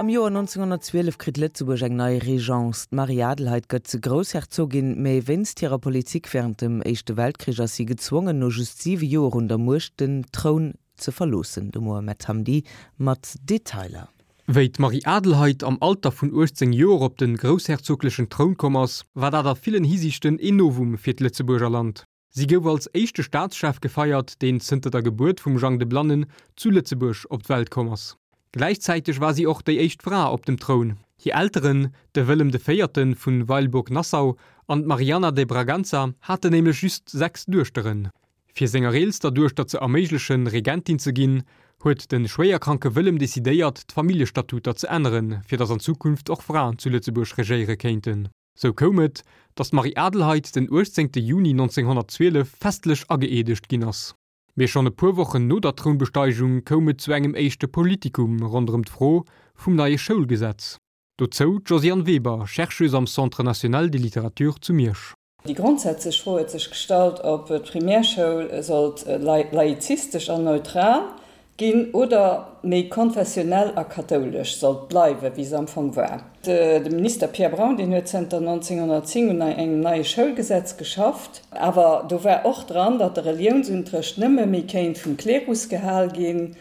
Am Joer 1912 kritt Lëtzebuerg eng nei Régence. D'Marie-Adelheid gëtt Groussherzogin, mä wéinst hirer Politik wärend dem Éischte Weltkrich ass si gezwongen, no just siwe Joer un der Muecht den Troun ze verloossen. De Mohamed Hamdi mat Detailer. Wéi d'Marie-Adelheid am Alter vun 18 Joer op de groussherzoglechen Troun komm ass, war dat a villen Hisiichten een Novum fir d'Lëtzebuerger Land. Si gouf als éischte Staatschef gefeiert, deen zënter der Gebuert vum Jang de Blannen zu Lëtzebuerg op d'Welt komm ass. Gläichzäiteg war si och déi éischt Fra op dem Troun. Hir Elteren, de Wëllem de Véierte vu Weilburg-Nassau an d'Marianna de Braganza, haten nämlech just 6 Duechteren. Fir senger eelster Duechter ze erméiglechen, Regentin ze ginn, huet de schwéierkranke Wëllem decidéiert, d'Familljestatuter ze änneren, fir datt an Zukunft och Fraen zu Lëtzebuerg regéiere kéinten. Sou koum et, datt d'Marie-Adelheid den 18 Juni 1912 festlech ageeedegt ginn ass. Mee schonn e puer Wochen no der Trounbesteigung koum et zu engem éischte Politikum ronderëm d'Fro vum neie Schoulgesetz. Dozou d'Josiane Weber, Chercheuse am Centre national de littérature zu Miersch. Déi grondsätzlech Fro huet sech gestallt, ob d'Primärschoul sollt laizistesch an neutral ginn oder méi konfessionell a kathoulesch sollt bleiwen, wéi se am Fong war. De Minister Pierre Braun, deen huet zënter 1910 un engem neie Schoulgesetz geschafft. Awer do war och dran, datt de Reliounsunterrecht nëmme méi kéint vum Klerus gehal ginn,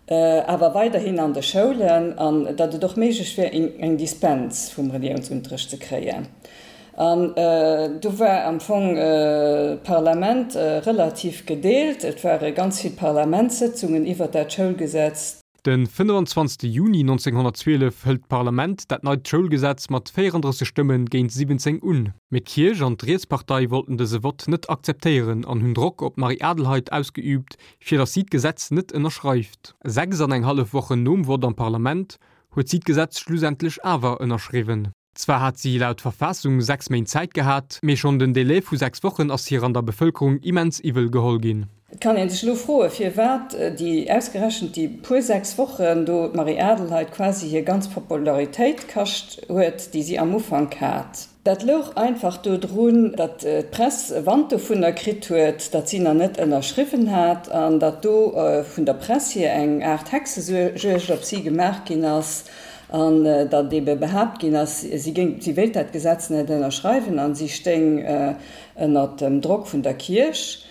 awer weiderhin an de Schoulen, an datt et och méiglech wär, eng Dispens vum Reliounsunterrecht ze kréien. An do war am Fong d'Parlament relativ gedeelt. Et ware ganz vill Parlamentssëtzungen iwwert dat Schoulgesetz. De 25 Juni 1912 hëlt d'Parlament dat neit Schoulgesetz mat 34 Stëmme géint 17 un. Mee d'Kierch an d'Rietspartei wollten dëse Vott net akzeptéieren an hunn Drock op d'Marie-Adelheid ausgeüübt, fir datt si d'Gesetz net ënnerschreift. 6 an eng hallef Wochen nom Vott am Parlament huet si d'Gesetz schlussendlech awer ënnerschriwwen. Zwar hat si laut Verfassung 6 Méint Zäit gehat, mee schonn den Delai vu 6 Wochen ass hir an der Bevëlkerung immens iwwel geholl ginn. Et kann ee sech elo froen, firwat déi ausgerechent déi puer 6 Wochen do d'Marie-Adelheid quasi hir ganz Popularitéit kascht huet, déi si am Ufank hat. Dat louch einfach dodrun, datt d'Press Wand dovunner kritt huet, datt si nach net ënnerschriwwen hat an datt do vun der Press hier eng Aart Hexejuegd op si gemaach ginn ass an datt ebe behaapt ginn ass, si géing, si wéilt dat Gesetz net ënnerschreiwen an si stéing ënnert dem Drock vun der Kierch.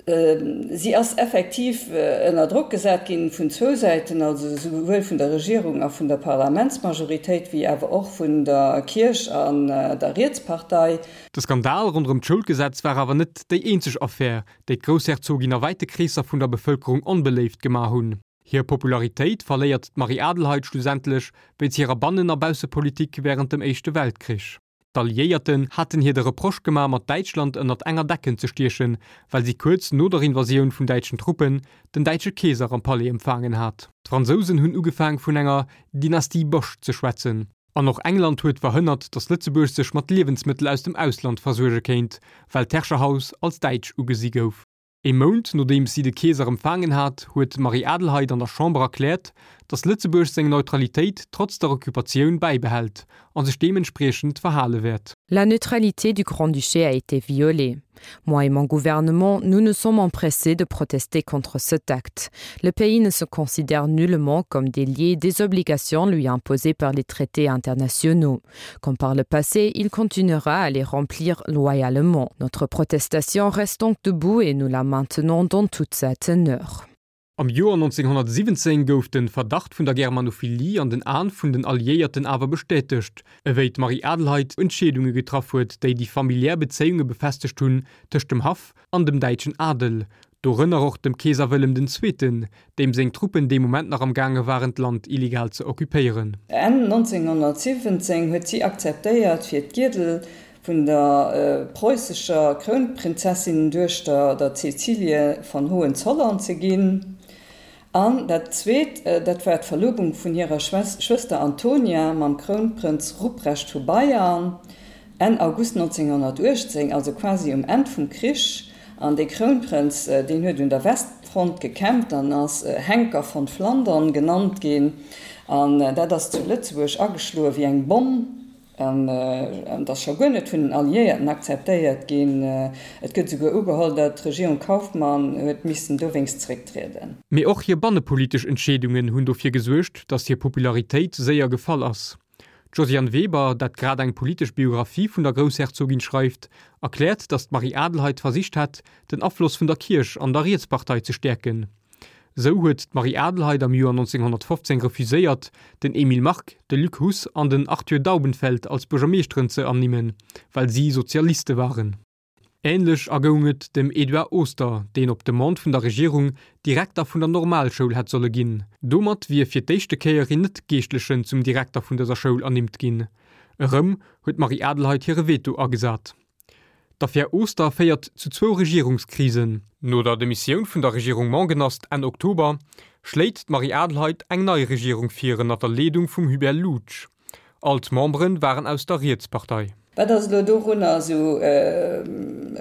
Si ass effektiv ënner Drock gesat ginn vun zwou Säiten, also esouwuel vun der Regierung a vun der Parlamentsmajoritéit wéi awer och vun der Kierch an der Rietspartei. De Skandal ronderëm d'Schoulgesetz war awer net déi eenzeg Affär, déi d'Groussherzogin a wäite Kreesser vun der Bevëlkerung onbeléift gemaach hunn. Hir Popularitéit verléiert d'Marie-Adelheid schlussendlech wéinst hirer Bannen a Baussepolitik wärend dem Éischte Weltkrich. D'Alliéierten haten hir de Reproche gemaach mat Däitschland ënnert enger Decken ze stiechen, well si kuerz no der Invasioun vun däitschen Truppen den däitsche Keeser am Palais empfaangen hat. D'Fransousen hunn ugefaang vun enger Dynastie Bosch ze schwätzen. An och England huet verhënnert, datt Lëtzebuerg sech mat Liewensmëttel aus dem Ausland versuerge kéint, well d'Herrscherhaus als däitsch ugesi gouf. Ee Mount nodeems si de Keeser empfaangen hat, huet d'Marie-Adelheid an der Chamber erkläert, datt Lëtzebuerg seng Neutralitéit trotz der Occupatioun bäibehält a sech deementspriechend verhale wäert. La neutralité du Grand-Duché a été violée. Moi et mon gouvernement, nous nous sommes empressés de protester contre cet acte. Le pays ne se considère nullement comme délié des obligations lui imposées par les traités internationaux. Comme par le passé, il continuera à les remplir loyalement. Notre protestation reste donc debout et nous la maintenons dans toute sa teneur. Am Joer 1917 gouf de Verdacht vun der Germanophilie an den Aen vun den Alliéierten awer bestätegt, ewéi d'Marie-Adelheid Entscheedunge getraff huet, déi déi familiär Bezéiunge befestegt hunn tëscht dem Haff an dem däitschen Adel, dorënner och dem Keeser Wëllem den Zweeten, deem seng Truppen dee Moment nach am gaange waren d'Land illegal ze occupéieren. Enn 1917 huet si akzeptéiert, fir d'Giedel vun der preussescher Krounprinzessinenduechter, der Cäcilie von Hohenzollern, ze ginn. An dat zweet, dat war d'Verlobung vun hirer Schwëster Antonia mam Krounprënz Ruprecht vu Bayern, Enn August 1918, also quasi um Enn vum Krich. An dee Krounprënz, deen huet un der Westfront gekämpft an ass Henker von Flandern genannt ginn. An dat ass zu Lëtzebuerg ageschloe wéi eng Bomm. An et ass scho guer net vun den Alliéierten akzeptéiert ginn. Et gëtt esouguer ugeholl, datt d'Regierung Kauffmann huet missen dowéinst zerécktrieden. Mee och hir bannepolitesch Entscheedungen hunn dofir gesuergt, datt hir Popularitéit séier gefall ass. D'Josiane Weber, dat grad eng politesch Biographie vun der Groussherzogin schreift, erkläert, datt d'Marie Adelheid versicht hätt, den Afloss vun der Kierch an der Rietspartei ze stäerken. Sou huet d'Marie Adelheid am Joer 1915 refuséiert, den Emile Mark, de Luc Huss an den Arthur Daubenfeld als Buergermeeschteren ze ernimmen, well si Sozialiste waren. Änlech ergoung et dem Edouard Oster, deen op Demande vun der Regierung Direkter vun der Normalschoul hätt solle ginn. Domat wier fir d'éischte Kéier een Net-Geeschtlechen zum Direkter vun dëser Schoul ernimmt ginn. Erëm huet d'Marie Adelheid hire Veto agesat. D'Affär Oster féiert zu zwou Regierungskrisen. No der Demissioun vun der Regierung Mongenast Enn Oktober schléit d'Marie Adelheid eng nei Regierung vir ënner der Leedung vum Hubert Loutsch. All d'Membere waren aus der Rietspartei. Wat ass elo dorunner esou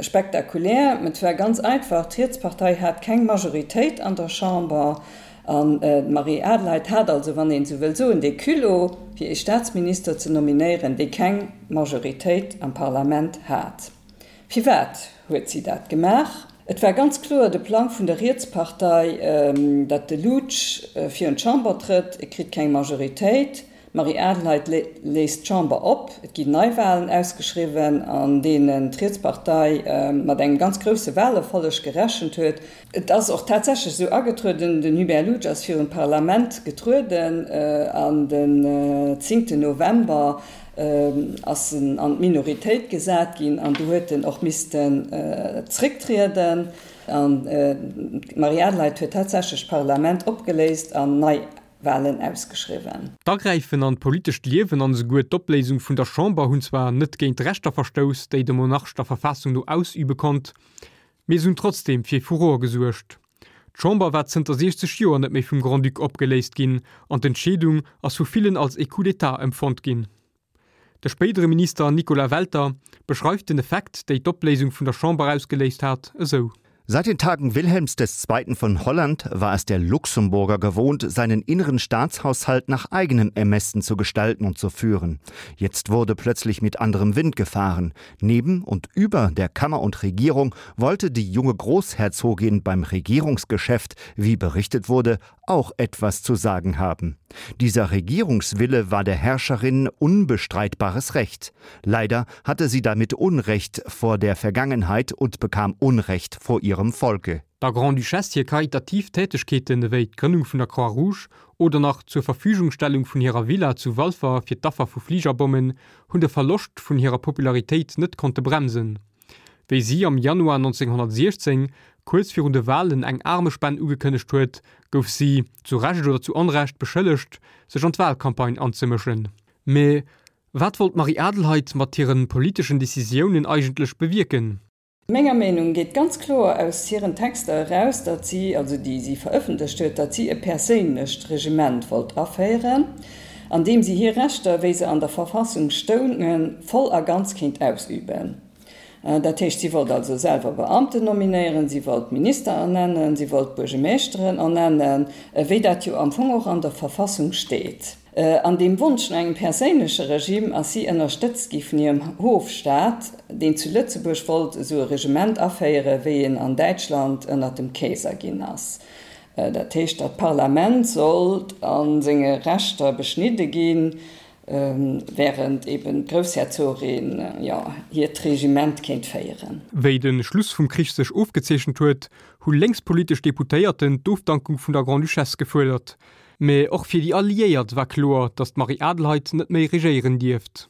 spektakulär? Et war ganz einfach, D'Rietspartei hat keng Majoritéit an der Chamber an d'Marie Adelheid hat also, wann een esou wëll soen, dee Culot, fir ee Staatsminister ze nominéieren, dee keng Majoritéit am Parlament hat. Firwat huet si dat gemaach? Et war ganz kloer de Plang vun der Rietspartei, datt de Loutsch virun d'Chamber trëtt, e kritt keng Majoritéit, D'Marie Adelheid léist d'Chamber op, et ginn Neiwahlen ausgeschriwwen, an deenen d'Rietspartei mat engem ganz grousse Wahlerfolleg gerechent huet. Et ass och tatsächlech esou agetrueden, den Hubert Loutsch ass virun d'Parlament getrueden an den zéngten November ass en an d'Minoritéit gesat ginn an du huet en och missten zrécktrieden. An d'Marie Adelheid huet tatsächlech d'Parlament opgeléist an nei Wahlen ausgeschriwwen. D'Agräifen an d'politescht Liewen an esouguer d'Opléisung vun der Chamber hunn zwar net géint d'Rechter verstouss, déi de Monarch der Verfassung no ausübe konnt, mee se hunn trotzdeem fir Furore gesuergt. D'Chamber war zënter 60 Joer net méi vum Grand-Duc opgeléist ginn an d'Entscheedung ass vu villen als ee Coup d'État empfonnt ginn. De spéidere Minister Nicolas Welter beschreift den Effekt, déi d'Opléisung vun der Chamber ausgeléist hat, esou. Seit den Tagen Wilhelms des Zweiten von Holland war es der Luxemburger gewohnt, seinen inneren Staatshaushalt nach eigenem Ermessen zu gestalten und zu führen. Jetzt wurde plötzlich mit anderem Wind gefahren. Neben und über der Kammer und Regierung wollte die junge Großherzogin beim Regierungsgeschäft, wie berichtet wurde, auch etwas zu sagen haben. Dieser Regierungswille war der Herrscherin unbestreitbares Recht. Leider hatte sie damit Unrecht vor der Vergangenheit und bekam Unrecht vor ihrem Volke. Der Grande-Duchesse hir karitativ Tätegkeeten ewéi d'Grënnung vun der Croix-Rouge oder nach d'Zurverfügungstellung vun hirer Villa zu Walfer fir d'Affer vu Fligerbommen hunn de Verloscht vun hirer Popularitéit net konnte bremsen. Wéi si am Januar 1916, kuerz virun de Walen, eng Aarmespenn ugekënnegt huet, gouf si, zu Recht oder zu Onrecht, beschëllegt, sech an d'Walcampagne anzemëschen. Mee wat wollt d'Marie Adelheid mat hire politeschen Decisiounen eigentlech bewierken? Menger Meenung geet ganz kloer aus hiren Texter eraus, datt si, also déi si verëffentlecht huet, datt si e perséinlecht Regiment wollt aféieren, an deem si hir Rechter, wéi se an der Verfassung stoungen, voll a ganz kéint ausüben. Dat heescht, si wollt also selwer Beamten nominéieren, si wollt Minister ernennen, si wollt Buergemeeschteren ernennen, wéi dat jo am Fong och an der Verfassung steet. An deem Wonsch no engem perséinleche Regime ass si ënnerstëtzt gi vun hirem Hofstaat, deen zu Lëtzebuerg wollt esou e Regiment aféieren, wéi en an Däitschland ënnert dem Keeser ginn ass. Dat heescht, datt d'Parlament sollt a senge Rechter beschnidde ginn, während eben d'Groussherzogin, jo, hiert Regiment kéint féieren. Wéi de Schluss vum Krich sech ofgezeechent huet, hu lénkspolitesch Deputéierten d'Ofdankung vun der Grande-Duchesse gefuerdert. Mä och fir déi Alliéiert war kloer, datt d'Marie Adelheid net méi regéieren dierft.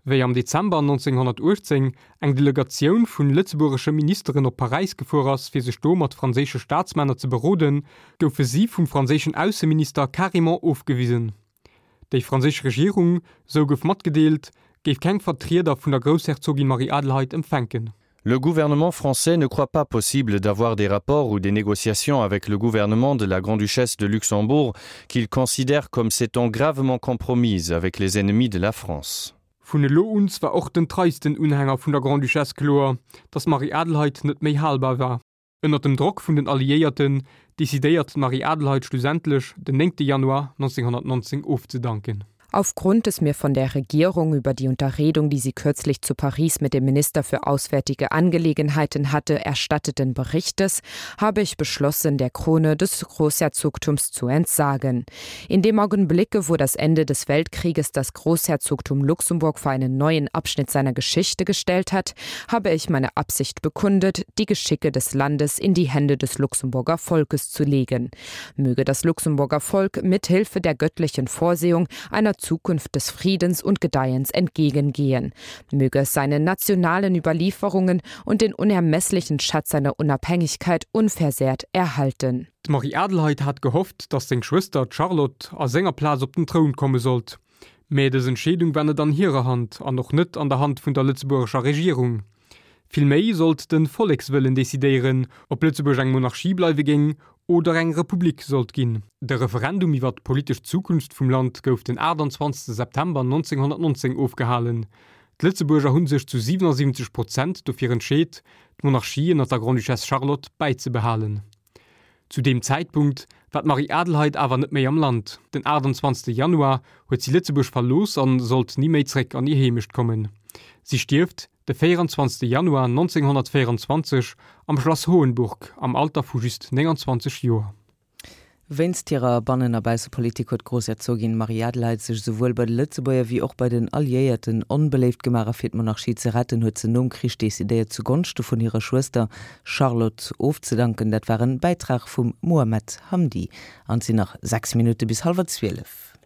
Wéi am Dezember 1918 eng Delegatioun vun lëtzebuergesche Ministeren op Paräis gefuer ass fir sech do mat franséische Staatsmänner ze beroden, goufe si vum franséischen Ausseminister carrément ofgewisen. Déi franséisch Regierung, sou gouf matgedeelt, géif keng Vertrieder vun der Groussherzogin Marie-Adelheid empfänken. Le gouvernement français ne croit pas possible d'avoir des rapports ou des négociations avec le gouvernement de la Grande-Duchesse de Luxembourg qu'il considère comme s'étant gravement compromise avec les ennemis de la France. Vun elo un war och den treisten Unhänger vun der Grande-Duchesse kloer, datt d'Marie-Adelheid net méi halbar war. Ënner dem Drock vun den Alliéierten decidéiert d'Marie-Adelheid schlussendlech, den 9 Januar 1919 ofzedanken. Aufgrund des mir von der Regierung über die Unterredung, die sie kürzlich zu Paris mit dem Minister für auswärtige Angelegenheiten hatte, erstatteten Berichtes, habe ich beschlossen, der Krone des Großherzogtums zu entsagen. In dem Augenblicke, wo das Ende des Weltkrieges das Großherzogtum Luxemburg vor einen neuen Abschnitt seiner Geschichte gestellt hat, habe ich meine Absicht bekundet, die Geschicke des Landes in die Hände des Luxemburger Volkes zu legen. Möge das Luxemburger Volk mit Hilfe der göttlichen Vorsehung einer Zukunft des Friedens und Gedeihens entgegengehen. Möge es seine nationalen Überlieferungen und den unermesslichen Schatz seiner Unabhängigkeit unversehrt erhalten. D'Marie-Adelheid hat gehofft, datt seng Schwëster, d'Charlotte, a senger Plaz op den Troun komme sollt. Mä dës Entscheedung war net an hirer Hand an och net an der Hand vun der lëtzebuergescher Regierung. Villméi sollt de Vollekswëllen decidéieren, ob Lëtzebuerg eng Monarchie bleiwe géing oder eng Republik sollt ginn. De Referendum iwwer d'politesch Zukunft vum Land gouf den 28 September 1919 ofgehalen. D'Lëtzebuerger hu sech zu 77 Prozent dofir entscheet, d'Monarchie ënner der Grande-Duchesse Charlotte bäizebehalen. Zu deem Zäitpunkt war d'Marie-Adelheid awer net méi am Land. Den 28 Januar huet si Lëtzebuerg verlooss an sollt ni méi zréck an hir Heemecht kommen. Si stierft de 24 Januar 1924 am Schlass Hohenburg am Alter vu just 29 Joer. Wéinst hirer Bannen a Baussepolitik huet d'Groussherzogin Marie-Adelheid sech esouwuel bei de Lëtzebuerger wéi och bei den Alliéierten onbeléift gemaach a fir d'Monarchie ze retten huet se nom Krich decidéiert zu Gonschte vun hirer Schwëster Charlotte ofzedanken. Dat war en Bäitrag vum Mohamed Hamdi an et sinn nach 6 Minutte bis hallwer 12.